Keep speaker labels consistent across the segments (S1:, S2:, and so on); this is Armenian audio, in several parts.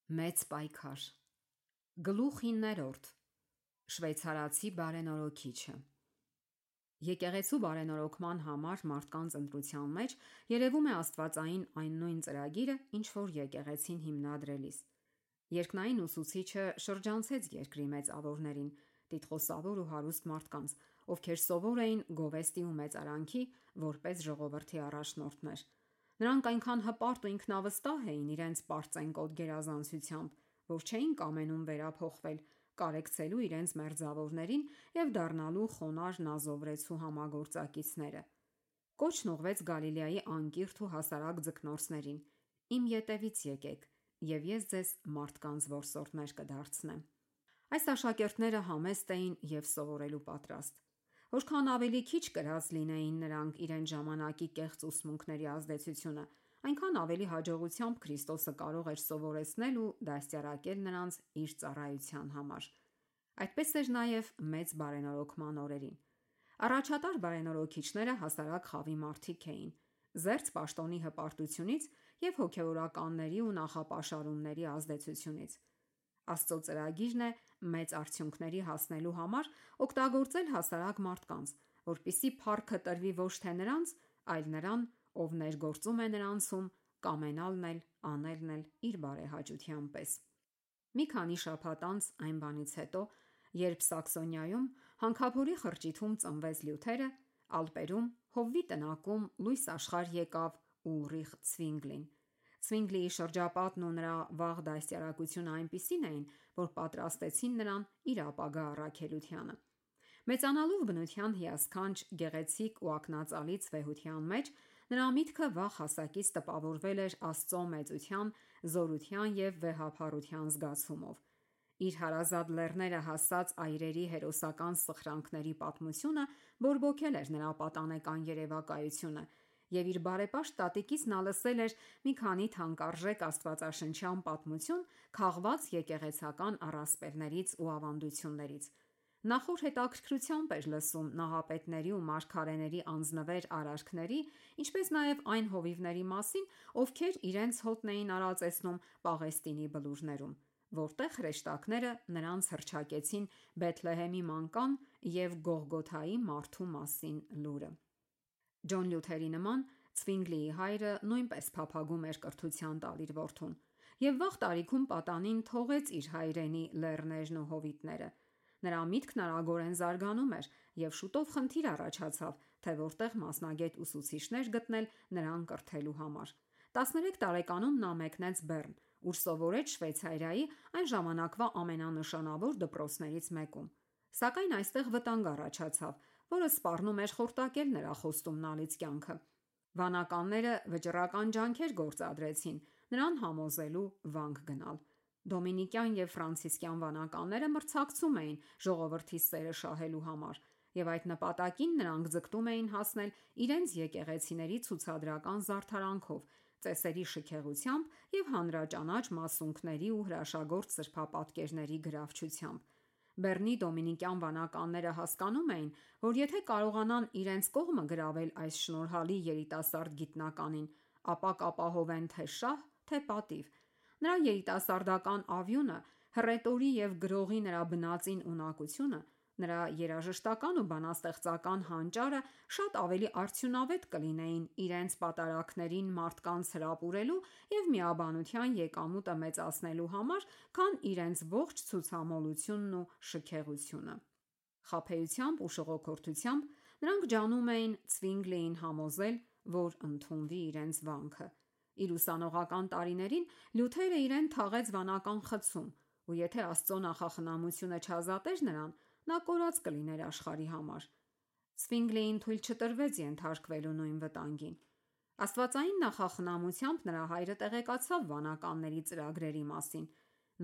S1: Մեծ պայքար։ Գլուխ 9. Շվեյցարացի բարենորոքիչը։ Եկեղեցու բարենորոգման համար մարդկանց ընտրության մեջ երևում է աստվածային այն նույն ծրագիրը, ինչ որ եկեղեցին հիմնադրելիս։ Երկնային ուսուցիչը շրջանցեց երկրի մեծավորներին, տիտղոսավոր ու հարուստ մարդկանց, ովքեր սովոր էին գովեստի ու մեծարանքի որպես ժողովրդի առաջնորդներ։ Նրանք այնքան հպարտ ու ինքնավստահ էին իրենց պարծենկոտ գերազանցությամբ, որ չէին կամենում վերափոխվել, կարեկցելու իրենց մերձավորներին եւ դառնալու խոնարհ նազովրեցու համագործակիցները։ Կոչն ուղղվեց Գալիլեայի անկիրթ ու հասարակ ձկնորսներին. «Իմ ետևից եկեք, եւ ես ձեզ մարդկանց որսորդներ կդարձնեմ»։ Այս աշակերտները համեստ էին եւ սովորելու պատրաստ։ Որքան ավելի քիչ կրած լինեին նրանք իրենց ժամանակի կեղծ ուսմունքների ազդեցությունը, այնքան ավելի հաջողությամբ Քրիստոսը կարող էր սովորեցնել ու դաստիարակել նրանց իր ծառայության համար։ Այդպես էր նաև մեծ բարենորոգման օրերին։ Առաջատար բարենորոգիչները հասարակ խավի մարդիկ էին, զերծ պաշտոնի հպարտությունից եւ հոգեվորականների ու նախապաշարումների ազդեցությունից։ Աստծո ծրագիրն է մեծ արդյունքների հասնելու համար օգտագործել հասարակ մարդկանց, որպիսի փառքը տրվի ոչ թե նրանց, այլ նրան, ով ներգործում է նրանցում, կամենալն էլ, անելն էլ իր բարեհաճության պես։ Մի քանի շաբաթ անց այն բանից հետո, երբ Սաքսոնիայում հանքափորի խրճիթում ծնվեց Լյութերը, Ալպերում Հովվի տնակում լույս աշխարհ եկավ Ուլրիխ Ցվինգլին։ Ցվինգլիի շրջապատն ու նրա վաղ դաստիարակությունը այնպիսին էին, որ պատրաստեցին նրան իր ապագա առաքելությանը։ Մեծանալով բնության հիասքանչ, գեղեցիկ ու ակնածալից վեհության մեջ, նրա միտքը վաղ հասակից տպավորվել էր Աստծո մեծության, զորության եւ վեհափառության զգացումով։ Իր հարազատ լեռները հասած այրերի հերոսական սխրանքների պատմությունը բորբոքել էր նրա պատանեկան երևակայությունը, եւ իր բարեպաշտ տատիկից նա լսել էր մի քանի թանկարժեք աստվածաշնչյան պատմություն քաղված եկեղեցական առասպելներից ու ավանդություններից։ Նա խոր հետաքրքրությամբ էր լսում նահապետների ու մարգարեների անձնվեր արարքների, ինչպես նաև այն հովիվների մասին, ովքեր իրենց հոտն էին արածեցնում Պաղեստինի բլուրներում, որտեղ հրեշտակները նրանց հռչակեցին Բեթլեհեմի մանկան եւ Գողգոթայի մարդու մասին լուրը։ Ջոն Լյութերի նման Ցվինգլիի հայրը նույնպես փափագում էր կրթության տալ իր որդուն, եւ վաղ տարիքում պատանին թողեց իր հայրենի լեռներն ու հովիտները։ Նրա միտքն արագորեն զարգանում էր եւ շուտով խնդիր առաջացավ, թե որտեղ մասնագետ ուսուցիչներ գտնել նրան կրթելու համար։ 13 տարեկանում նա մեկնեց Բեռն, ուր սովորեց Շվեյցարիայի այն ժամանակվա ամենանշանավոր դպրոցներից մեկում։ Սակայն այստեղ վտանգ առաջացավ, որը սպառնում էր խորտակել նրա խոստումնալից կյանքը։ Վանականները վճռական ջանքեր գործադրեցին նրան համոզելու վանք գնալ։ Դոմինիկյան եւ ֆրանցիսկյան վանականները մրցակցում էին ժողովրդի սերը շահելու համար, եւ այդ նպատակին նրանք ձգտում էին հասնել իրենց եկեղեցիների ցուցադրական զարդարանքով, ծեսերի շքեղությամբ եւ հանրաճանաչ մասունքների ու հրաշագործ սրբապատկերների գրավչությամբ։ Բեռնի դոմինիկյան վանականները հասկանում էին, որ եթե կարողանան իրենց կողմը գրավել այս շնորհալի երիտասարդ գիտնականին, ապա կապահովեն թե շահ, թե պատիվ։ Նրա երիտասարդական ավյունը, հռետորի եւ գրողի նրա բնածին ունակությունը, նրա երաժշտական ու բանաստեղծական հանճարը շատ ավելի արդյունավետ կլինեին իրենց պատարակներին մարդկանց հրապուրելու եւ միաբանության եկամուտը մեծացնելու համար, քան իրենց ողջ ցուցամոլությունն ու շքեղությունը։ Խաբեությամբ ու շողոքորթությամբ նրանք ջանում էին Ցվինգլիին համոզել, որ ընդունվի իրենց վանքը։ Իր ուսանողական տարիներին Լյութերը իրեն թաղեց վանական խցում, ու եթե Աստծո նախախնամությունը չազատեր նրան, նա կորած կլիներ աշխարհի համար։ Ցվինգլիին թույլ չտրվեց ենթարկվելու նույն վտանգին։ Աստվածային նախախնամությամբ նրա հայրը տեղեկացավ վանականների ծրագրերի մասին։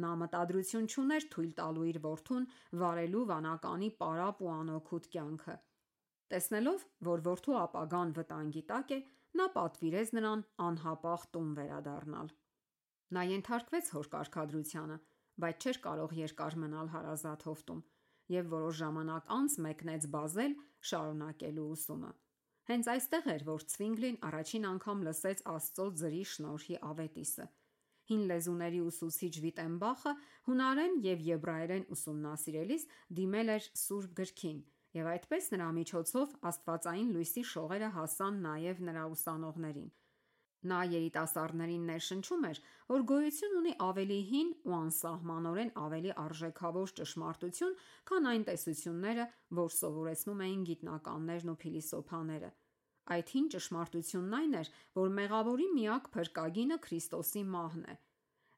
S1: Նա մտադրություն չուներ թույլ տալու իր որդուն վարելու վանականի պարապ ու անօգուտ կյանքը։ Տեսնելով, որ որդու ապագան վտանգի տակ է, նա պատվիրեց նրան անհապաղ տուն վերադառնալ։ Նա ենթարկվեց հոր կարգադրությանը, բայց չէր կարող երկար մնալ հարազատ հովտում եւ որոշ ժամանակ անց մեկնեց Բազել շարունակելու ուսումը։ Հենց այստեղ էր, որ Ցվինգլին առաջին անգամ լսեց Աստծո ձրի շնորհի ավետիսը։ Հին լեզուների ուսուցիչ Վիտենբախը հունարեն և եբրայերեն ուսումնասիրելիս դիմել էր Սուրբ գրքին, և այդպես նրա միջոցով աստվածային լույսի շողերը հասան նաև նրա ուսանողներին։ Նա երիտասարդներին ներշնչում էր, որ գոյություն ունի ավելի հին ու անսահմանորեն ավելի արժեքավոր ճշմարտություն, քան այն տեսությունները, որ սովորեցնում էին գիտնականներն ու փիլիսոփաները։ Այդ հին ճշմարտությունն այն էր, որ մեղավորի միակ փրկագինը Քրիստոսի մահն է։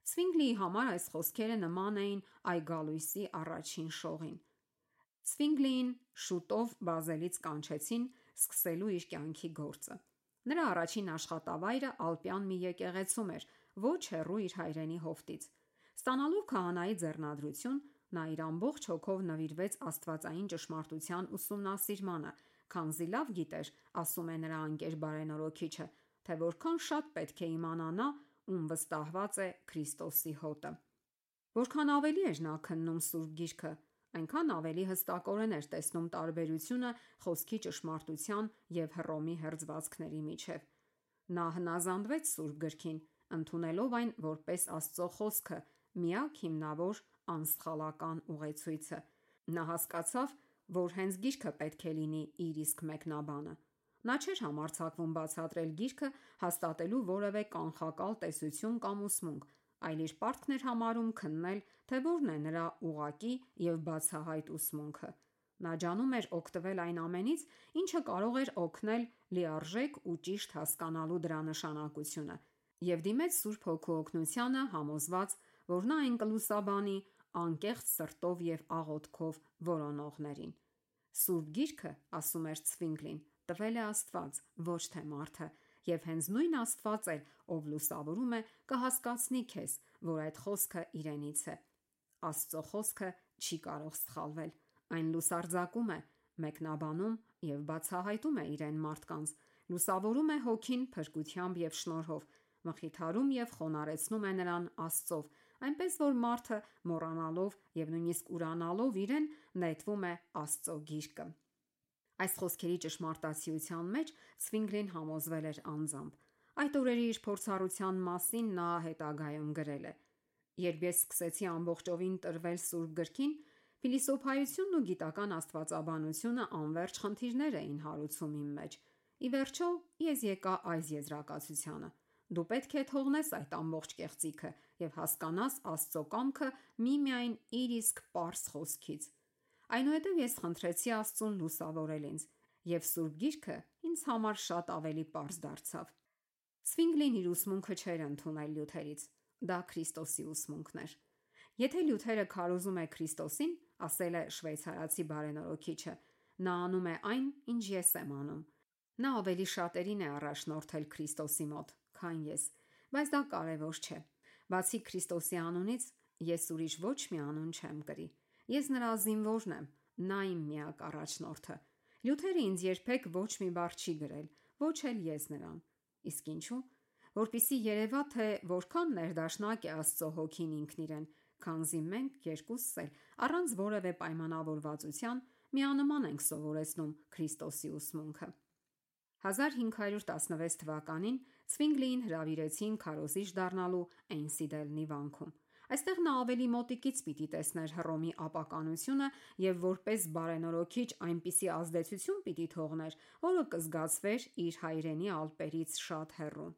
S1: Ցվինգլիի համար այս խոսքերը նման էին այգալույսի առաջին շողին։ Ցվինգլիին շուտով Բազելից կանչեցին սկսելու իր կյանքի գործը։ Նրա առաջին աշխատավայրը Ալպյան մի եկեղեցում էր, ոչ հեռու իր հայրենի հովտից։ Ստանալով քահանայի ձեռնադրություն, նա իր ամբողջ հոգով նվիրվեց աստվածային ճշմարտության ուսումնասիրմանը, քանզի լավ գիտեր, ասում է նրա ընկեր բարենորոքիչը, թե որքան շատ պետք է իմանա նա, ում վստահված է Քրիստոսի հոտը։ Որքան ավելի էր նա քննում Սուրբ Գիրքը, այնքան ավելի հստակորեն էր տեսնում տարբերությունը խոսքի ճշմարտության և Հռոմի հերձվածքների միջև։ Նա հնազանդվեց Սուրբ Գրքին, ընդունելով այն որպես Աստծո խոսքը, միակ հիմնավոր անսխալական ուղեցույցը։ Նա հասկացավ, որ հենց Գիրքը պետք է լինի իր իսկ մեկնաբանը։ Նա չէր համարձակվում բացատրել Գիրքը հաստատելու որևէ կանխակալ տեսություն կամ ուսմունք, այլ իր պարտքն էր համարում քննել, թե որն է նրա ուղղակի և բացահայտ ուսմունքը։ Նա ջանում էր օգտվել այն ամենից, ինչը կարող էր օգնել լիարժեք ու ճիշտ հասկանալու դրա նշանակությունը, և դիմեց Սուրբ Հոգու օգնությանը, համոզված, որ նա այն կլուսաբանի անկեղծ սրտով և աղոթքով որոնողներին։ Սուրբ Գիրքը, ասում էր Ցվինգլին, տվել է Աստված, ոչ թե մարդը, և հենց նույն Աստված էլ, ով լուսավորում է, կհասկացնի քեզ, որ այդ խոսքը իրենից է։ Աստծո խոսքը չի կարող սխալվել։ Այն լուսարձակում է, մեկնաբանում և բացահայտում է իրեն մարդկանց, լուսավորում է հոգին փրկությամբ և շնորհով, մխիթարում և խոնարհեցնում է նրան Աստծով, այնպես որ մարդը մոռանալով և նույնիսկ ուրանալով իրեն, նետվում է Աստծո գիրկը։ Այս խոսքերի ճշմարտացիության մեջ Ցվինգլին համոզվել էր անձամբ։ Այդ օրերի իր փորձառության մասին նա հետագայում գրել է. «Երբ ես սկսեցի ամբողջովին տրվել Սուրբ Գրքին, փիլիսոփայությունն ու գիտական աստվածաբանությունը անվերջ խնդիրներ էին հարուցում իմ մեջ։ Ի վերջո, ես եկա այս եզրակացությանը. դու պետք է թողնես այդ ամբողջ կեղծիքը և հասկանաս Աստծո կամքը միմիայն իր իսկ պարզ խոսքից։ Այնուհետև ես խնդրեցի Աստծուն լուսավորել ինձ, և Սուրբ Գիրքը ինձ համար շատ ավելի պարզ դարձավ»։ Ցվինգլին իր ուսմունքը չէր ընդունել Լյութերից։ Դա Քրիստոսի ուսմունքն էր։ Եթե Լյութերը քարոզում է Քրիստոսին, ասել է շվեյցարացի բարենորոքիչը, նա անում է այն, ինչ ես եմ անում։ Նա ավելի շատերին է առաջնորդել Քրիստոսի մոտ, քան ես, բայց դա կարևոր չէ։ Բացի Քրիստոսի անունից, ես ուրիշ ոչ մի անուն չեմ կրի։ Ես նրա զինվորն եմ, նա իմ միակ առաջնորդը։ Լյութերը ինձ երբեք ոչ մի բառ չի գրել, ոչ էլ ես նրան։ Իսկ ինչու՞։ Որպեսզի երևա, թե որքան ներդաշնակ է Աստծո հոգին ինքն իրեն, քանզի մենք երկուսս էլ առանց որևէ պայմանավորվածության միանման ենք սովորեցնում Քրիստոսի ուսմունքը։ 1516 թվականին Ցվինգլիին հրավիրեցին քարոզիչ դառնալու Էյնսիդելնի վանքում։ Այստեղ նա ավելի մոտիկից պիտի տեսներ Հռոմի ապականությունը և որպես բարենորոքիչ այնպիսի ազդեցություն պիտի թողներ, որը կզգացվեր իր հայրենի Ալպերից շատ հեռու։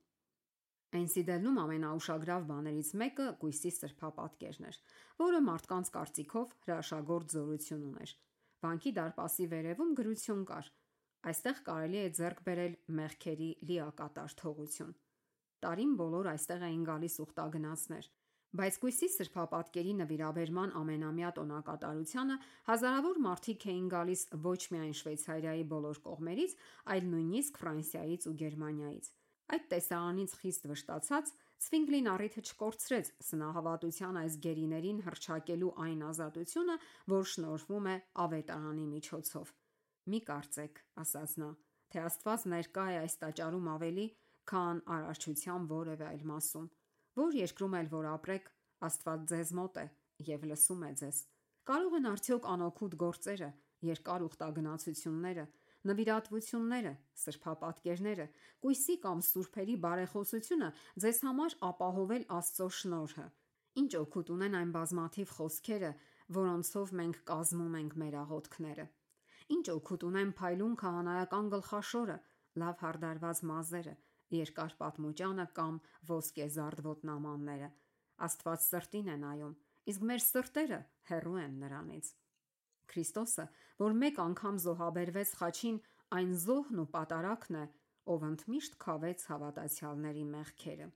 S1: Էյնսիդելնում ամենաուշագրավ բաներից մեկը կույսի սրբապատկերն էր, որը մարդկանց կարծիքով հրաշագործ զորություն ուներ։ Վանքի դարպասի վերևում գրություն կար. «Այստեղ կարելի է ձեռք բերել մեղքերի լիակատար թողություն»։ Տարին բոլոր այստեղ էին գալիս ուխտագնացներ, բայց կույսի սրբապատկերի նվիրաբերման ամենամյա տոնակատարությանը հազարավոր մարդիկ էին գալիս ոչ միայն Շվեյցարիայի բոլոր կողմերից, այլ նույնիսկ Ֆրանսիայից ու Գերմանիայից։ Այդ տեսարանից խիստ վշտացած, Ցվինգլին առիթը չկորցրեց սնահավատության այս գերիներին հռչակելու այն ազատությունը, որ շնորհվում է ավետարանի միջոցով։ «Մի կարծեք, ասաց նա, թե Աստված ներկա է այս տաճարում ավելի, քան արարչության որևէ այլ մասում։ Որ երկրում էլ որ ապրեք, Աստված ձեզ մոտ է և լսում է ձեզ։ Կարող են արդյոք անօգուտ գործերը, երկար ուխտագնացությունները, նվիրատվությունները, սրբապատկերները, կույսի կամ սուրբերի բարեխոսությունը ձեզ համար ապահովել Աստծո շնորհը։ Ինչ օգուտ ունեն այն բազմաթիվ խոսքերը, որոնցով մենք կազմում ենք մեր աղոթքները։ Ինչ օգուտ ունեն փայլուն քահանայական գլխաշորը, լավ հարդարված մազերը, երկար պատմուճանը կամ ոսկեզարդ ոտնամանները։ Աստված սրտին է նայում, իսկ մեր սրտերը հեռու են նրանից։ Քրիստոսը, որ մեկ անգամ զոհաբերվեց խաչին, այն զոհն ու պատարագն է, ով ընդմիշտ քավեց հավատացյալների մեղքերը։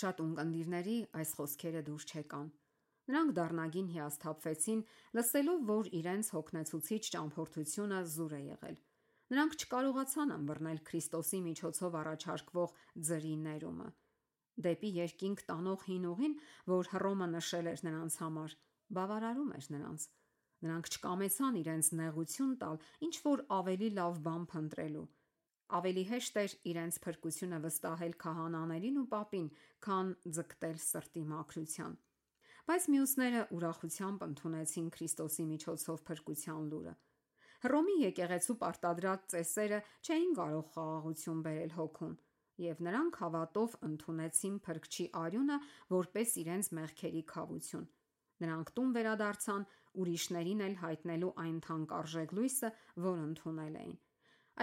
S1: Շատ ունկնդիրների այս խոսքերը դուր չեկան։ Նրանք դառնագին հիասթափվեցին, լսելով, որ իրենց հոգնեցուցիչ ճամփորդությունը զուր է եղել։ Նրանք չկարողացան ըմբռնել Քրիստոսի միջոցով առաջարկվող ձրի ներումը։ Դեպի երկինք տանող հին ուղին, որ Հռոմը նշել էր նրանց համար, բավարարում էր նրանց։ Նրանք չկամեցան իրենց նեղություն տալ ինչ որ ավելի լավ բան փնտրելու։ Ավելի հեշտ էր իրենց փրկությունը վստահել քահանաներին ու պապին, քան ձգտել սրտի մաքրության։ Բայց մյուսները ուրախությամբ ընդունեցին Քրիստոսի միջոցով փրկության լուրը։ Հռոմի եկեղեցու պարտադրած ծեսերը չէին կարող խաղաղություն բերել հոգուն, եւ նրանք հավատով ընդունեցին Փրկչի արյունը որպես իրենց մեղքերի քավություն։ Նրանք տուն վերադարձան ուրիշներին էլ հայտնելու այն թանկարժեք լույսը, որ ընդունել էին։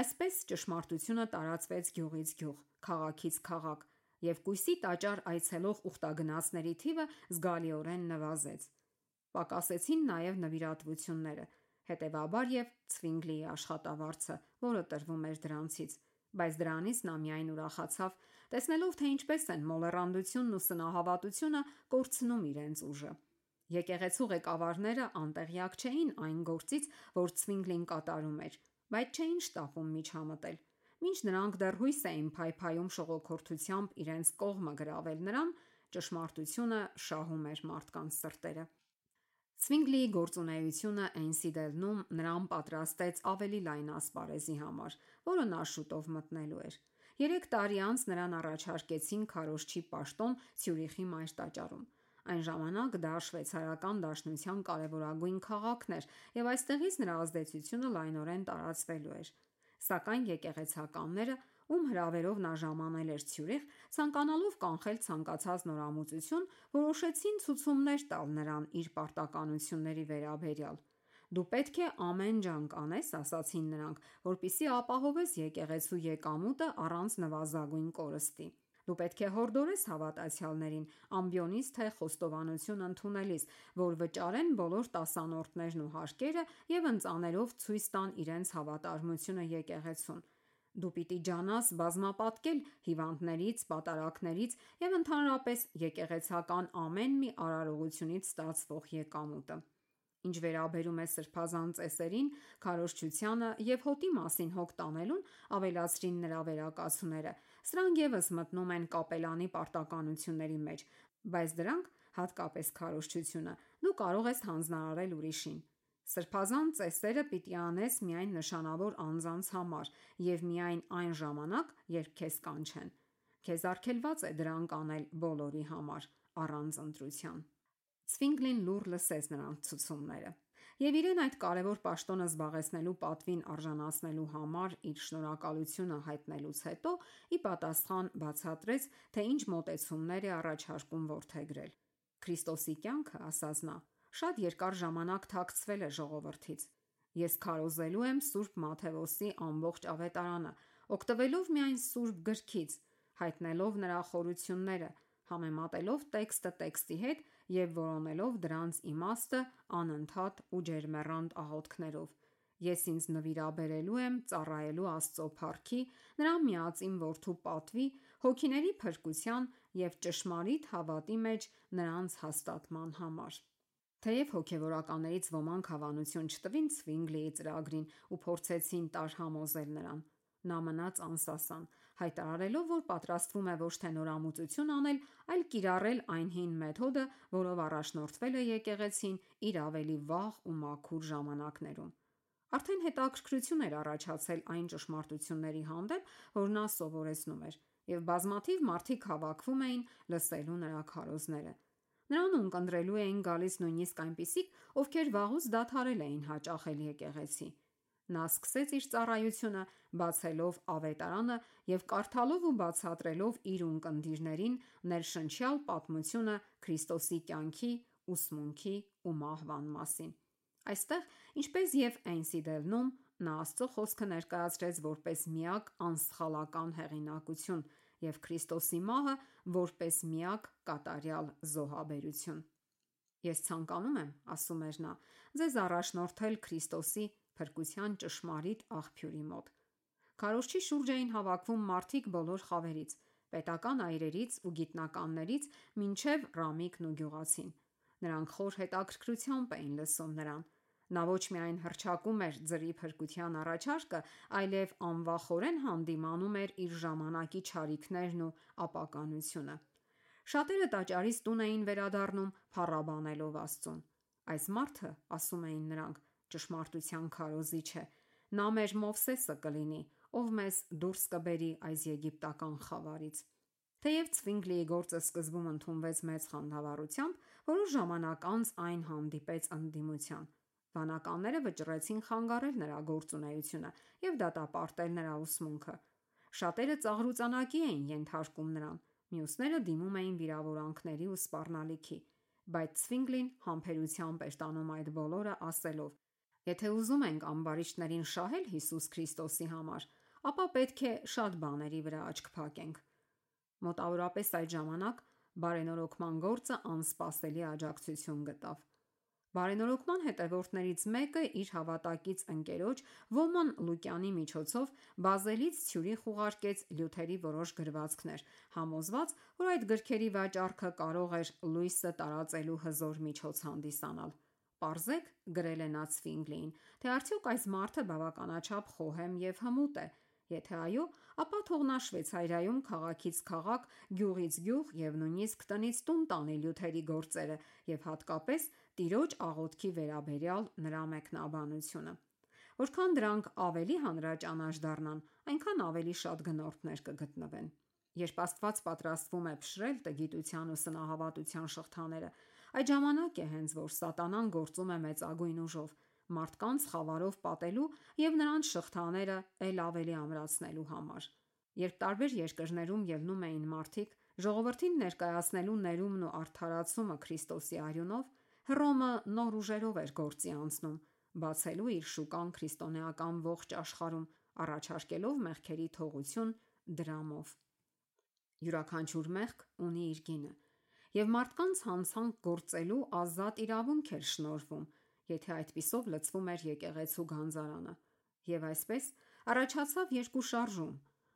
S1: Այսպես ճշմարտությունը տարածվեց գյուղից գյուղ, քաղաքից քաղաք, եւ կույսի տաճար այցելող ուխտագնացների թիվը զգալիորեն նվազեց։ Պակասեցին նաև նվիրատվությունները, հետևաբար եւ Ցվինգլիի աշխատավարձը, որը տրվում էր դրանցից, բայց դրանից նա միայն ուրախացավ, տեսնելով, թե ինչպես են մոլեռանդությունն ու սնահավատությունը կորցնում իրենց ուժը։ Եկեղեցու ղեկավարները անտեղյակ չէին այն գործից, որ Ցվինգլին կատարում էր, բայց չէին շտապում միջամտել։ Մինչ նրանք դեռ հույս էին փայփայում շողոքորթությամբ իրենց կողմը գրավել նրան, ճշմարտությունը շահում էր մարդկանց սրտերը։ Ցվինգլիի գործունեությունը Էնսիդելնում նրան պատրաստեց ավելի լայն ասպարեզի համար, որը նա շուտով մտնելու էր։ 3 տարի անց նրան առաջարկեցին քարոզչի պաշտոն Ցյուրիխի մայր տաճարում։ Այն ժամանակ դա շվեյցարական դաշնության կարևորագույն քաղաքն էր, եւ այստեղից նրա ազդեցությունը լայնորեն տարածվելու էր։ Սակայն եկեղեցականները, ում հրավերով նա ժամանել էր Ցյուրիխ, ցանկանալով կանխել ցանկացած նորամուծություն, որոշեցին ցուցումներ տալ նրան իր պարտականությունների վերաբերյալ։ Դու պետք է ամեն ջանք անես, ասացին նրանք, որպեսզի ապահովես եկեղեցու եկամուտը առանց նվազագույն կորստի։ Դու պետք է հորդորես հավատացյալներին, ամբիոնից թե խոստովանություն ընդունելիս, որ վճարեն բոլոր տասանորդներն ու հարկերը եւ ընծաներով ցույց տան իրենց հավատարմությունը եկեղեցուն։ Դու պիտի ջանաս բազմապատկել հիվանդներից, պատարագներից եւ ընդհանրապես եկեղեցական ամեն մի արարողությունից ստացվող եկամուտը։ Ինչ վերաբերում է սրբազան ծեսերին, քարոզչությանը եւ հոտի մասին հոգ տանելուն, ավելացրին նրա վերակացուները։ Սրանք եւս մտնում են կապելանի պարտականությունների մեջ, բայց դրանք, հատկապես քարոզչությունը, դու կարող ես հանձնարարել ուրիշին։ Սրբազան ծեսերը պիտի անես միայն նշանավոր անձանց համար եւ միայն այն ժամանակ, երբ քեզ կանչեն։ Քեզ արգելված է դրանք անել բոլորի համար, առանց ընտրության։ Ցվինգլին լուռ լսեց նրանց ցուցումները եւ իրեն այդ կարևոր պաշտոնը զբաղեցնելու պատվին արժանացնելու համար իր շնորհակալությունը հայտնելուց հետո ի պատասխան բացատրեց, թե ինչ մոտեցումներ է առաջարկում որդեգրել։ Քրիստոսի կյանքը, ասաց նա, շատ երկար ժամանակ թաքցվել է ժողովրդից։ Ես քարոզելու եմ Սուրբ Մաթեոսի ամբողջ ավետարանը, օգտվելով միայն Սուրբ գրքից, հայտնելով նրա խորությունները, համեմատելով տեքստը տեքստի հետ եւ որոնելով դրանց իմաստը անընդհատ ու ջերմեռանդ աղոթքներով։ Ես ինձ նվիրաբերելու եմ ծառայելու Աստծո փառքի, նրա միածին որդու պատվի, հոգիների փրկության եւ ճշմարիտ հավատի մեջ նրանց հաստատման համար։ Թեև հոգևորականներից ոմանք հավանություն չտվին Ցվինգլիի ծրագրին ու փորձեցին տարհամոզել նրան, նա մնաց անսասան, հայտարարելով, որ պատրաստվում է ոչ թե նորամուծություն անել, այլ կիրառել այն հին մեթոդը, որով առաջնորդվել է եկեղեցին իր ավելի վաղ ու մաքուր ժամանակներում։ Արդեն հետաքրքրություն էր առաջացել այն ճշմարտությունների հանդեպ, որ նա սովորեցնում էր, եւ բազմաթիվ մարդիկ հավաքվում էին լսելու նրա քարոզները։ Նրան ունկնդրելու էին գալիս նույնիսկ այնպիսիք, ովքեր վաղուց դադարել էին հաճախել եկեղեցի։ Նա սկսեց իր ծառայությունը բացելով ավետարանը և կարդալով ու բացատրելով իր ունկնդիրներին ներշնչյալ պատմությունը Քրիստոսի կյանքի, ուսմունքի ու մահվան մասին։ Այստեղ, ինչպես և Էնսիդելնում, նա Աստծո խոսքը ներկայացրեց որպես միակ անսխալական հեղինակություն և Քրիստոսի մահը որպես միակ կատարյալ զոհաբերություն։ Ես ցանկանում եմ, ասում էր նա, ձեզ առաջնորդել Քրիստոսի փրկության ճշմարիտ աղբյուրի մոտ։ Քարոզչի շուրջ էին հավաքվում մարդիկ բոլոր խավերից, պետական այրերից ու գիտնականներից մինչև Ռամիկն ու գյուղացին։ Նրանք խոր հետաքրքրությամբ էին լսում նրան։ Նա ոչ միայն հռչակում էր ձրի փրկության առաջարկը, այլև անվախորեն հանդիմանում էր իր ժամանակի չարիքներն ու ապականությունը։ Շատերը տաճարից տուն էին վերադառնում փառաբանելով Աստծուն։ Այս մարդը, ասում էին նրանք, ճշմարտության քարոզիչ է։ Նա մեր Մովսեսը կլինի, ով մեզ դուրս կբերի այս եգիպտական խավարից։ Թեև Ցվինգլիի գործը սկզբում ընդունվեց մեծ խանդավառությամբ, որոշ ժամանակ անց այն հանդիպեց ընդդիմության։ Վանականները վճռեցին խանգարել նրա գործունեությունը և դատապարտել նրա ուսմունքը։ Շատերը ծաղրուծանակի էին ենթարկում նրան, մյուսները դիմում էին վիրավորանքների ու սպառնալիքի, բայց Ցվինգլին համբերությամբ էր տանում այդ բոլորը, ասելով. «Եթե ուզում ենք ամբարիշտներին շահել Հիսուս Քրիստոսի համար, ապա պետք է շատ բաների վրա աչք փակենք»։ Մոտավորապես այդ ժամանակ բարենորոգման գործը անսպասելի աջակցություն գտավ։ Բարենորոգման հետևորդներից մեկը իր հավատակից ընկերոջ Ոման Լուկյանի միջոցով Բազելից Ցյուրիխ ուղարկեց Լյութերի որոշ գրվածքներ, համոզված, որ այդ գրքերի վաճառքը կարող էր լույսը տարածելու հզոր միջոց հանդիսանալ։ Պարզեք, գրել է նա Ցվինգլիին, թե արդյոք այս մարդը բավականաչափ խոհեմ և հմուտ է։ Եթե այո, ապա թող նա Շվեյցարիայում քաղաքից քաղաք, գյուղից գյուղ և նույնիսկ տնից տուն տանի Լյութերի գործերը և հատկապես տիրոջ աղոթքի վերաբերյալ նրա մեկնաբանությունը։ Որքան դրանք ավելի հանրաճանաչ դառնան, այնքան ավելի շատ գնորդներ կգտնվեն։ Երբ Աստված պատրաստվում է փշրել տգիտության ու սնահավատության շղթաները, այդ ժամանակ է հենց որ Սատանան գործում է մեծագույն ուժով՝ մարդկանց խավարով պատելու և նրանց շղթաները էլ ավելի ամրացնելու համար։ Երբ տարբեր երկրներում ելնում էին մարդիկ ժողովրդին ներկայացնելու ներումն ու արդարացումը Քրիստոսի արյունով, Հռոմը նոր ուժերով էր գործի անցնում՝ բացելու իր շուկան քրիստոնեական ողջ աշխարհում, առաջարկելով մեղքերի թողություն դրամով։ Յուրաքանչյուր մեղք ունի իր գինը, և մարդկանց հանցանք գործելու ազատ իրավունք էր շնորհվում, եթե այդպիսով լցվում էր եկեղեցու գանձարանը։ Եվ այսպես առաջացավ երկու շարժում.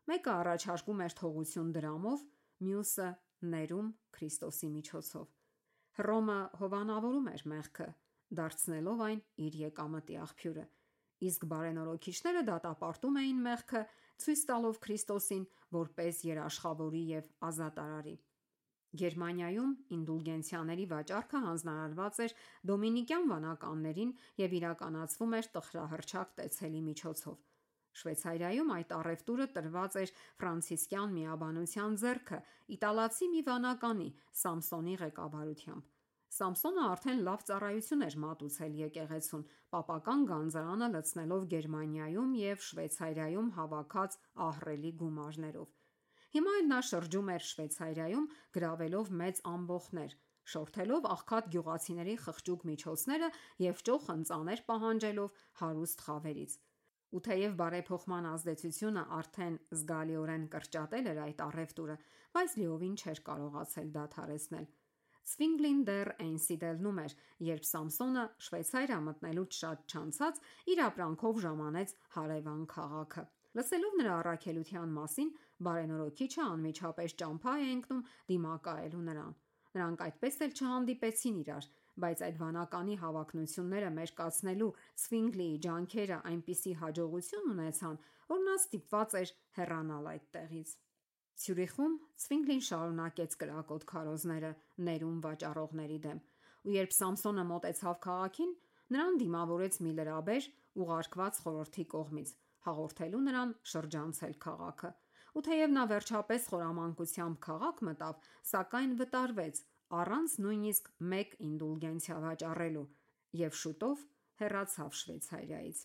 S1: մեկը առաջարկում էր թողություն դրամով, մյուսը՝ ներում Քրիստոսի միջոցով։ Հռոմը հովանավորում էր մեղքը, դարձնելով այն իր եկամտի աղբյուրը, իսկ բարենորոգիչները դատապարտում էին մեղքը, ցույց տալով Քրիստոսին որպես երաշխավորի և ազատարարի։ Գերմանիայում ինդուլգենցիաների վաճառքը հանձնարարված էր դոմինիկյան վանականներին և իրականացվում էր տխրահռչակ տեսելի միջոցով։ Շվեյցարիայում այդ առևտուրը տրված էր ֆրանցիսկյան միաբանության ձեռքը իտալացի մի վանականի՝ Սամսոնի ղեկավարությամբ։ Սամսոնը արդեն լավ ծառայություն էր մատուցել եկեղեցուն՝ պապական գանձարանը լցնելով Գերմանիայում և Շվեյցարիայում հավաքած ահռելի գումարներով։ Հիմա էլ նա շրջում էր Շվեյցարիայում գրավելով մեծ ամբոխներ, շորթելով աղքատ գյուղացիների խղճուկ միջոցները և ճոխ ընծաներ պահանջելով հարուստ խավերից։ Ու թեև բարեփոխման ազդեցությունը արդեն զգալիորեն կրճատել էր այդ առևտուրը, բայց լիովին չէր կարողացել դադարեցնել։ Ցվինգլին դեռ Էնսիդելնում էր, երբ Սամսոնը Շվեյցարիա մտնելուց շատ չանցած իր ապրանքով ժամանեց հարևան քաղաքը։ Լսելով նրա առաքելության մասին, բարենորոգիչը անմիջապես ճամփա է ընկնում դիմակայելու նրան։ Նրանք այդպես էլ չհանդիպեցին իրար, բայց այդ վանականի հավակնությունները մերկացնելու Ցվինգլիի ջանքերը այնպիսի հաջողություն ունեցան, որ նա ստիպված էր հեռանալ այդ տեղից։ Ցյուրիխում Ցվինգլին շարունակեց կրակոտ քարոզները ներում վաճառողների դեմ, ու երբ Սամսոնը մոտեցավ քաղաքին, նրան դիմավորեց մի լրաբեր՝ ուղարկված խորհրդի կողմից, հաղորդելու նրան շրջանցել քաղաքը։ Ու թեև նա վերջապես խորամանկությամբ քաղաք մտավ, սակայն վտարվեց առանց նույնիսկ մեկ ինդուլգենցիա վաճառելու և շուտով հեռացավ Շվեյցարիայից։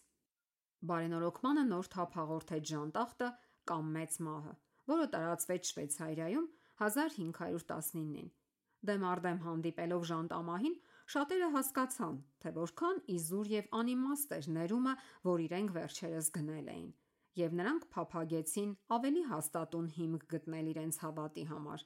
S1: Բարենորոգմանը նոր թափ հաղորդեց ժանտախտը կամ մեծ մահը, որը տարածվեց Շվեյցարիայում 1519-ին։ Դեմ առ դեմ հանդիպելով ժանտամահին, շատերը հասկացան, թե որքան իզուր եւ անիմաստ էր ներումը, որ իրենք վերջերս գնել էին, եւ նրանք փափագեցին ավելի հաստատուն հիմք գտնել իրենց հավատի համար։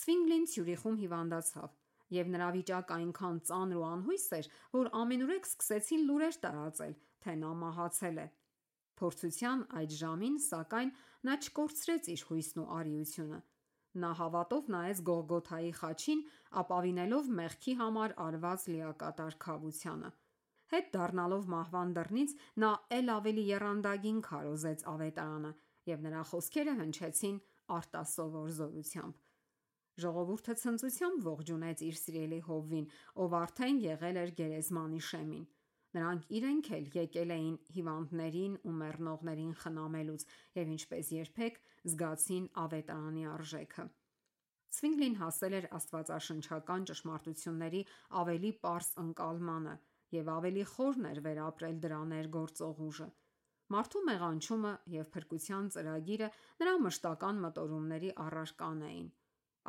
S1: Ցվինգլին Ցյուրիխում հիվանդացավ, եւ նրա վիճակը այնքան ծանր ու անհույս էր, որ ամենուրեք սկսեցին լուրեր տարածել, թե նա մահացել է։ Փորձության այդ ժամին, սակայն, նա չկորցրեց իր հույսն ու արիությունը։ Նա հավատով նայեց Գողգոթայի խաչին, ապավինելով մեղքի համար արված լիակատար քավությանը։ Հետ դառնալով մահվան դռնից, նա էլ ավելի եռանդագին քարոզեց ավետարանը, եւ նրա խոսքերը հնչեցին արտասովոր զորությամբ։ Ժողովուրդը ցնծությամբ ողջունեց իր սիրելի հովվին, ով արդեն եղել էր գերեզմանի շեմին։ Նրանք իրենք էլ եկել էին հիվանդներին ու մեռնողներին խնամելուց եւ ինչպես երբեք զգացին ավետարանի արժեքը։ Ցվինգլին հասել էր աստվածաշնչական ճշմարտությունների ավելի պարզ ընկալմանը եւ ավելի խորն էր վերապրել դրա ներգործող ուժը։ Մարդու մեղանչումը եւ փրկության ծրագիրը նրա մշտական մտորումների առարական էին։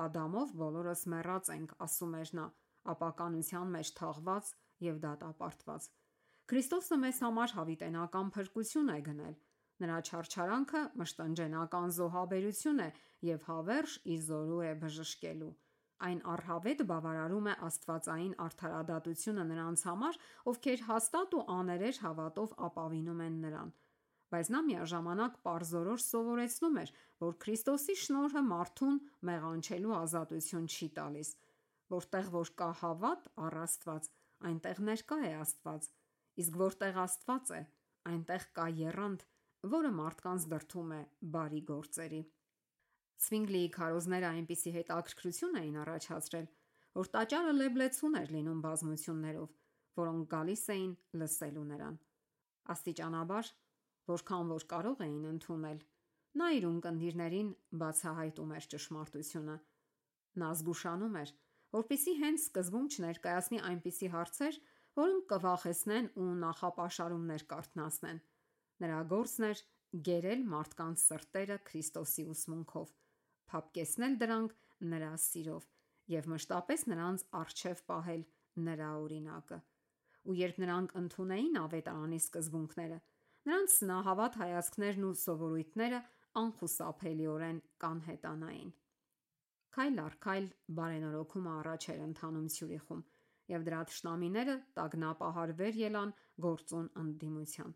S1: Ադամով բոլորս մեռած ենք, ասում էր նա, ապականության մեջ թաղված եւ դատապարտված։ Քրիստոսը մեզ համար հավիտենական փրկություն է գնել։ Նրա չարչարանքը մշտնջենական զոհաբերություն է եւ հավերժ իզորու է բժշկելու։ Այն առհավետ բավարարում է աստվածային արդարադատությունը նրանց համար, ովքեր հաստատ ու աներեջ հավատով ապավինում են նրան։ Բայց նա միաժամանակ պարզորոշ սովորեցնում էր, որ Քրիստոսի շնորհը մարդուն մեղանչելու ազատություն չի տալիս։ Որտեղ որ կա հավատ առ Աստված, այնտեղ ներկա է Աստված, իսկ որտեղ Աստված է, այնտեղ կա եռանդ, որը մարդկանց դրդում է բարի գործերի։ Ցվինգլիի քարոզները այնպիսի հետաքրքրություն էին առաջացրել, որ տաճարը լեբլեցուն էր լինում բազմություններով, որոնք գալիս էին լսելու նրան։ Աստիճանաբար, որքան որ կարող էին ընդունել, նա իր ունկնդիրներին բացահայտում էր ճշմարտությունը։ Նա զգուշանում էր, որպեսզի հենց սկզբում չներկայացնի այնպիսի հարցեր, որոնք կվախեցնեն ու նախապաշարումներ կարթնացնեն։ Նրա գործն էր գերել մարդկանց սրտերը Քրիստոսի ուսմունքով, փափկեցնել դրանք նրա սիրով եւ մշտապես նրանց առջև պահել նրա օրինակը։ Ու երբ նրանք ընդունեին ավետարանի սկզբունքները, նրանց սնահավատ հայացքներն ու սովորույթները անխուսափելիորեն կանհետանային։ Քայլ առ քայլ բարենորոգումը առաջ էր ընթանում Ցյուրիխում, եւ դրա թշնամիները տագնապահարվեր ելան գործուն ընդդիմության։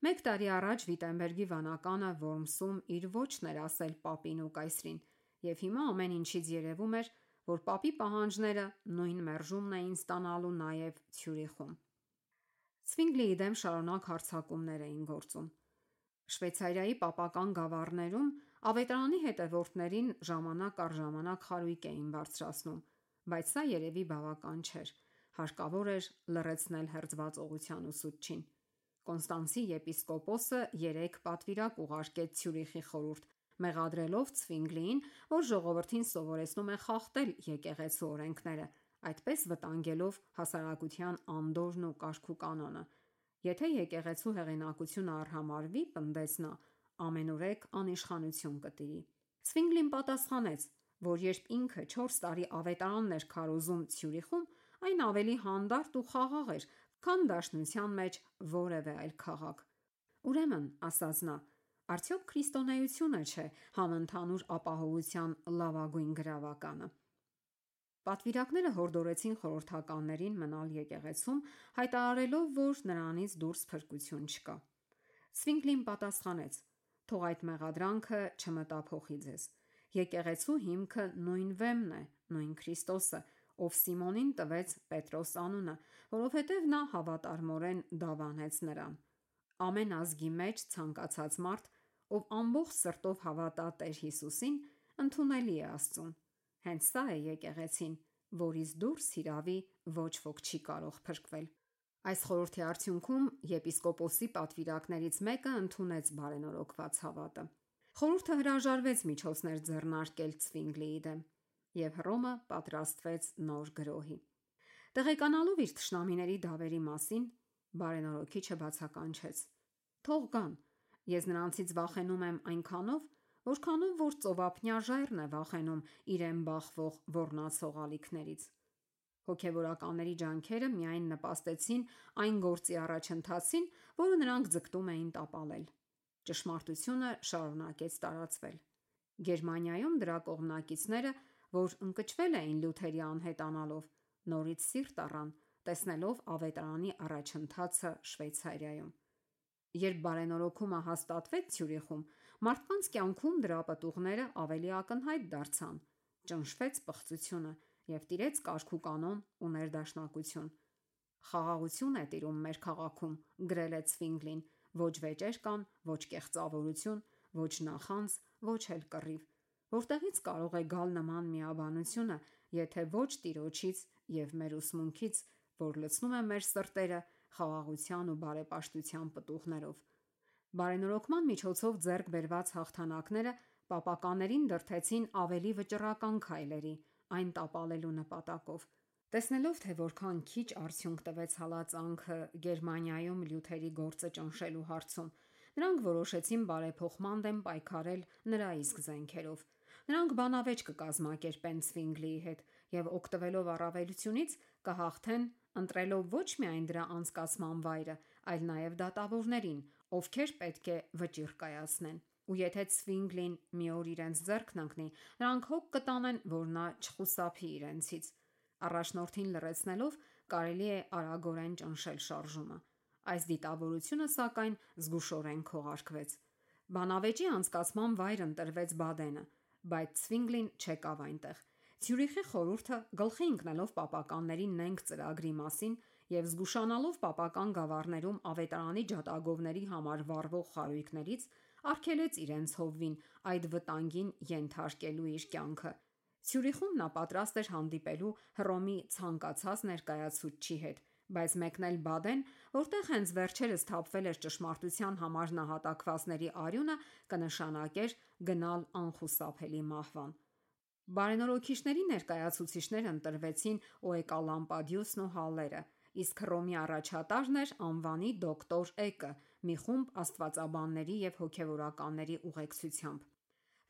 S1: Մեկ տարի առաջ Վիտենբերգի վանականը Որմսում իր ոչն էր ասել պապին ու կայսրին, եւ հիմա ամեն ինչից երևում էր, որ պապի պահանջները նույն մերժումն էին ստանալու նաեւ Ցյուրիխում։ Ցվինգլիի դեմ շարունակ հարձակումներ էին գործում։ Շվեյցարիայի պապական գավառներում ավետարանի հետևորդներին ժամանակ առ ժամանակ խարույկ էին բարձրացնում, բայց սա երևի բավական չէր։ Հարկավոր էր լռեցնել հերձվածողության ուսուցչին։ Կոնստանցի եպիսկոպոսը 3 պատվիրակ ուղարկեց Ցյուրիխի խորհուրդ, մեղադրելով Ցվինգլիին, որ ժողովրդին սովորեցնում է խախտել եկեղեցու օրենքները, այդպես վտանգելով հասարակության անդորրն ու կարգ ու կանոնը։ Եթե եկեղեցու հեղինակությունը արհամարվի, պնդեց նա, ամենուրեք անիշխանություն կտիրի։ Ցվինգլին պատասխանեց, որ երբ ինքը 4 տարի ավետարանն էր քարոզում Ցյուրիխում, այն ավելի հանդարտ ու խաղաղ էր, քան դաշնության մեջ որևէ այլ քաղաք։ Ուրեմն, ասաց նա, արդյոք քրիստոնեությունը չէ համընդհանուր ապահովության լավագույն գրավականը։ Պատվիրակները հորդորեցին խորհրդականներին մնալ եկեղեցում, հայտարարելով, որ նրանից դուրս փրկություն չկա։ Ցվինգլին պատասխանեց. «Թող այդ մեղադրանքը չմտափոխի ձեզ։ Եկեղեցու հիմքը նույն Վեմն է, նույն Քրիստոսը, ով Սիմոնին տվեց Պետրոս անունը, որովհետև նա հավատարմորեն դավանեց նրան։ Ամեն ազգի մեջ ցանկացած մարդ, ով ամբողջ սրտով հավատա Տեր Հիսուսին, ընդունելի է Աստծուն։ Հենց սա է եկեղեցին, որից դուրս հիրավի ոչ ոք չի կարող փրկվել»։ Այս խորհրդի արդյունքում եպիսկոպոսի պատվիրակներից մեկը ընդունեց բարենորոգված հավատը։ Խորհուրդը հրաժարվեց միջոցներ ձեռնարկել Ցվինգլիի դեմ, եւ Հռոմը պատրաստվեց նոր գրոհի։ Տեղեկանալով իր թշնամիների դավերի մասին, բարենորոգիչը բացականչեց. Թող գան։ Ես նրանցից վախենում եմ այնքանով, որքանով որ ծովափնյա ժայռն է վախենում իրեն բախվող ոռնացող ալիքներից։ Հոգևորականների ջանքերը միայն նպաստեցին այն գործի առաջընթացին, որը նրանք ձգտում էին տապալել։ Ճշմարտությունը շարունակեց տարածվել։ Գերմանիայում դրա կողմնակիցները, որ ընկճվել էին Լյութերի անհետանալով, նորից սիրտ առան, տեսնելով ավետարանի առաջընթացը Շվեյցարիայում։ Երբ բարենորոգումը հաստատվեց Ցյուրիխում, մարդկանց կյանքում դրա պտուղները ավելի ակնհայտ դարձան, ճնշվեց պղծությունը և տիրեց կարգուկանոն ու ներդաշնակություն։ «Խաղաղություն է տիրում մեր քաղաքում», գրել է Ցվինգլին, «ոչ վեճեր կան, ոչ կեղծավորություն, ոչ նախանձ, ոչ էլ կռիվ։ Որտեղի՞ց կարող է գալ նման միաբանությունը, եթե ոչ Տիրոջից և մեր ուսմունքից, որ լցնում է մեր սրտերը խաղաղության ու բարեպաշտության պտուղներով»։ Բարենորոգման միջոցով ձեռք բերված հաղթանակները պապականներին դրդեցին ավելի վճռական քայլերի, այն տապալելու նպատակով։ Տեսնելով, թե որքան քիչ արդյունք տվեց հալածանքը Գերմանիայում Լյութերի գործը ճնշելու հարցում, նրանք որոշեցին բարեփոխման դեմ պայքարել նրա իսկ զենքերով։ Նրանք բանավեճ կկազմակերպեն Ցվինգլիի հետ և օգտվելով առավելությունից կհաղթեն, ընտրելով ոչ միայն դրա անցկացման վայրը, այլ նաև դատավորներին, ովքեր պետք է վճիռ կայացնեն։ Ու եթե Ցվինգլին մի օր իրենց ձեռքն ընկնի, նրանք հոգ կտանեն, որ նա չխուսափի իրենցից։ Առաջնորդին լռեցնելով կարելի է արագորեն ճնշել շարժումը։ Այս դիտավորությունը, սակայն, զգուշորեն քողարկվեց։ Բանավեճի անցկացման վայր ընտրվեց Բադենը, բայց Ցվինգլին չեկավ այնտեղ։ Ցյուրիխի խորհուրդը, գլխի ընկնելով պապականների նենգ ծրագրի մասին և զգուշանալով պապական գավառներում ավետարանի ջատագովների համար վառվող խարույկներից, արգելեց իրենց հովվին այդ վտանգին ենթարկելու իր կյանքը։ Ցյուրիխում նա պատրաստ էր հանդիպելու Հռոմի ցանկացած ներկայացուցչի հետ, բայց մեկնել Բադեն, որտեղ հենց վերջերս թափվել էր ճշմարտության համար նահատակվածների արյունը, կնշանակեր գնալ անխուսափելի մահվան։ Բարենորոգիչների ներկայացուցիչներ ընտրվեցին Օեկալամպադիուսն ու Հալլերը, իսկ Հռոմի առաջատարն էր անվանի դոկտոր Էկը՝ մի խումբ աստվածաբանների և հոգևորականների ուղեկցությամբ։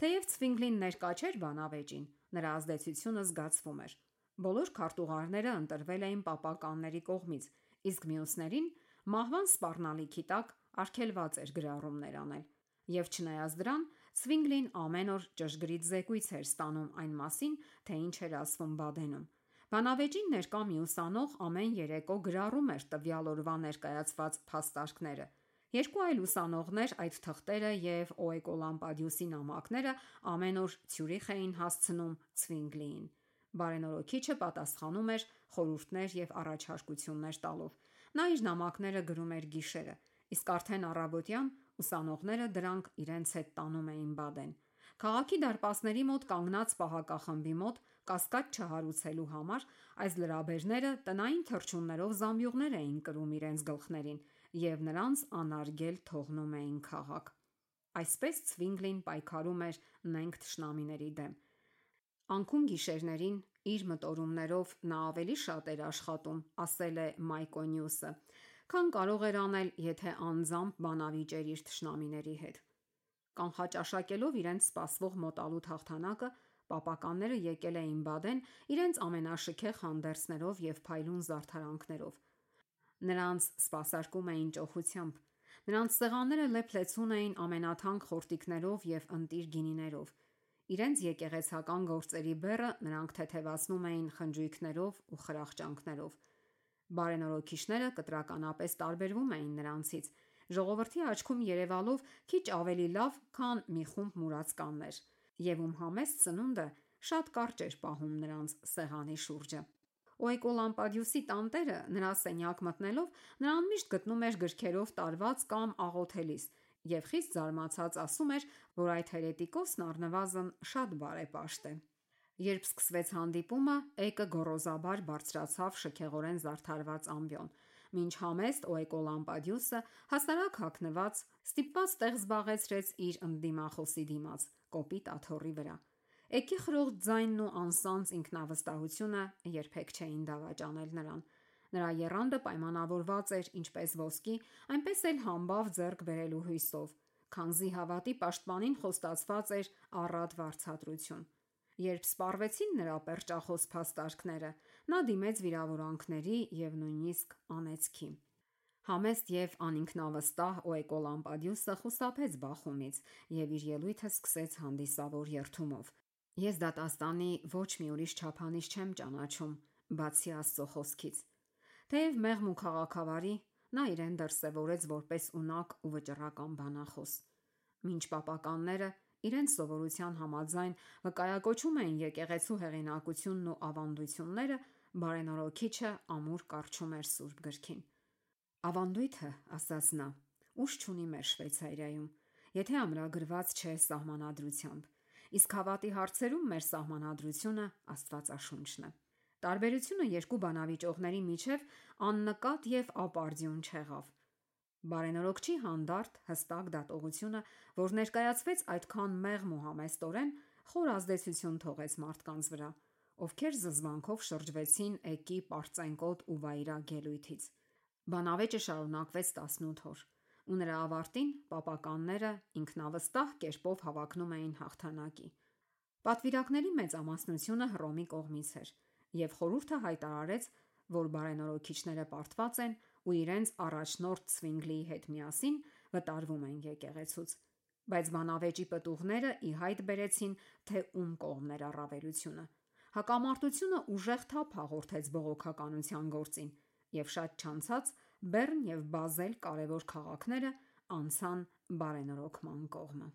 S1: Թեև Ցվինգլին ներկա չէր բանավեճին, նրա ազդեցությունը զգացվում էր։ Բոլոր քարտուղարները ընտրվել էին պապականների կողմից, իսկ մյուսներին մահվան սպառնալիքի տակ արգելված էր գրառումներ անել։ Եվ չնայած դրան, Ցվինգլին ամեն օր ճշգրիտ զեկույց էր ստանում այն մասին, թե ինչ էր ասվում Բադենում։ Բանավեճին ներկա մյուս անող ամեն երեկո գրառում էր տվյալ օրվա ներկայացված փաստարկները։ Երկու այլ ուսանողներ այդ թղթերը և Օեկոլամպադիուսի նամակները ամեն օր Ցյուրիխ էին հասցնում Ցվինգլիին։ Բարենորոգիչը պատասխանում էր խորհուրդներ և առաջարկություններ տալով։ Նա իր նամակները գրում էր գիշերը, իսկ արդեն առավոտյան ուսանողները դրանք իրենց հետ տանում էին Բադեն։ Քաղաքի դարպասների մոտ կանգնած պահակախմբի մոտ կասկած չհարուցելու համար այս լրաբերները տնային թռչուններով զամբյուղներ էին կրում իրենց գլխներին և նրանց անարգել թողնում էին քաղաք։ Այսպես Ցվինգլին պայքարում էր նենգ թշնամիների դեմ։ Անկում գիշերներին իր մտորումներով նա ավելի շատ էր աշխատում, ասել է Մայկոնյուսը, քան կարող էր անել, եթե անձամբ բանավիճեր իր թշնամիների հետ։ Կանխաճաշակելով իրենց սպասվող մոտալուտ հաղթանակը, պապականները եկել էին Բադեն իրենց ամենաշքեղ հանդերձներով և փայլուն զարդարանքներով։ Նրանց սպասարկում էին ճոխությամբ։ Նրանց սեղանները լեփ-լեցուն էին ամենաթանկ խորտիկներով և ընտիր գինիներով։ Իրենց եկեղեցական գործերի բեռը նրանք թեթևացնում էին խնջույքներով ու խրախճանքներով։ Բարենորոգիչները կտրականապես տարբերվում էին նրանցից, ժողովրդի աչքում երևալով քիչ ավելի լավ, քան մի խումբ մուրացկաններ, և ում համեստ սնունդը շատ կարճ էր պահում նրանց սեղանի շուրջը։ Օեկոլամպադիուսի տանտերը նրա սենյակ մտնելով նրան միշտ գտնում էր գրքերով տարված կամ աղոթելիս և խիստ զարմացած ասում էր, որ այդ հերետիկոսն առնվազն շատ բարեպաշտ է։ Երբ սկսվեց հանդիպումը, Էկը գոռոզաբար բարձրացավ շքեղորեն զարդարված ամբիոն, մինչ համեստ Օեկոլամպադիուսը հասարակ հագնված ստիպված տեղ զբաղեցրեց իր ընդդիմախոսի դիմաց, կոպիտ աթոռի վրա։ Էկի խրոխտ ձայնն ու անսանձ ինքնավստահությունը երբեք չէին դավաճանել նրան։ Նրա եռանդը պայմանավորված էր ինչպես ոսկի, այնպես էլ համբավ ձեռք բերելու հույսով, քանզի հավատի պաշտպանին խոստացված էր առատ վարձատրություն։ Երբ սպառվեցին նրա պերճախոս փաստարկները, նա դիմեց վիրավորանքների և նույնիսկ անեծքի։ Համեստ և անինքնավստահ Օեկոլամպադիուսը խուսափեց բախումից և իր ելույթը սկսեց հանդիսավոր երդումով. «Ես դատաստանի ոչ մի ուրիշ չափանիշ չեմ ճանաչում, բացի Աստծո խոսքից»։ Թեև մեղմ ու քաղաքավարի, նա իրեն դրսևորեց որպես ունակ ու վճռական բանախոս։ Մինչ պապականները իրենց սովորության համաձայն վկայակոչում էին եկեղեցու հեղինակությունն ու ավանդույթները, բարենորոքիչը ամուր կառչում էր Սուրբ Գրքին։ «Ավանդույթը, — ասաց նա, — ուժ չունի մեր Շվեյցարիայում, եթե ամրագրված չէ Սահմանադրությամբ, իսկ հավատի հարցերում մեր Սահմանադրությունը Աստվածաշունչն է»։ Տարբերությունը երկու բանավիճողների միջև աննկատ և ապարդյուն չեղավ։ Բարենորոքչի հանդարտ, հստակ դատողությունը, որ ներկայացվեց այդքան մեղմ ու համեստորեն, խոր ազդեցություն թողեց մարդկանց վրա, ովքեր զզվանքով շրջվեցին էկի պարծենկոտ ու վայրագ ելույթից։ Բանավեճը շարունակվեց 18 օր, ու նրա ավարտին պապականները ինքնավստահ կերպով հավակնում էին հաղթանակի։ Պատվիրակների մեծամասնությունը Հռոմի կողմից էր, և խորհուրդը հայտարարեց, որ բարենորոքիչները պարտված են ու իրենց առաջնորդ Ցվինգլիի հետ միասին վտարվում են եկեղեցուց։ Բայց բանավեճի պտուղները ի հայտ բերեցին, թե ում կողմն էր առավելությունը։ Հակամարտությունը ուժեղ թափ հաղորդեց բողոքականության գործին, և շատ չանցած Բեռն և Բազել կարևոր քաղաքները անցան բարենորոգման կողմը։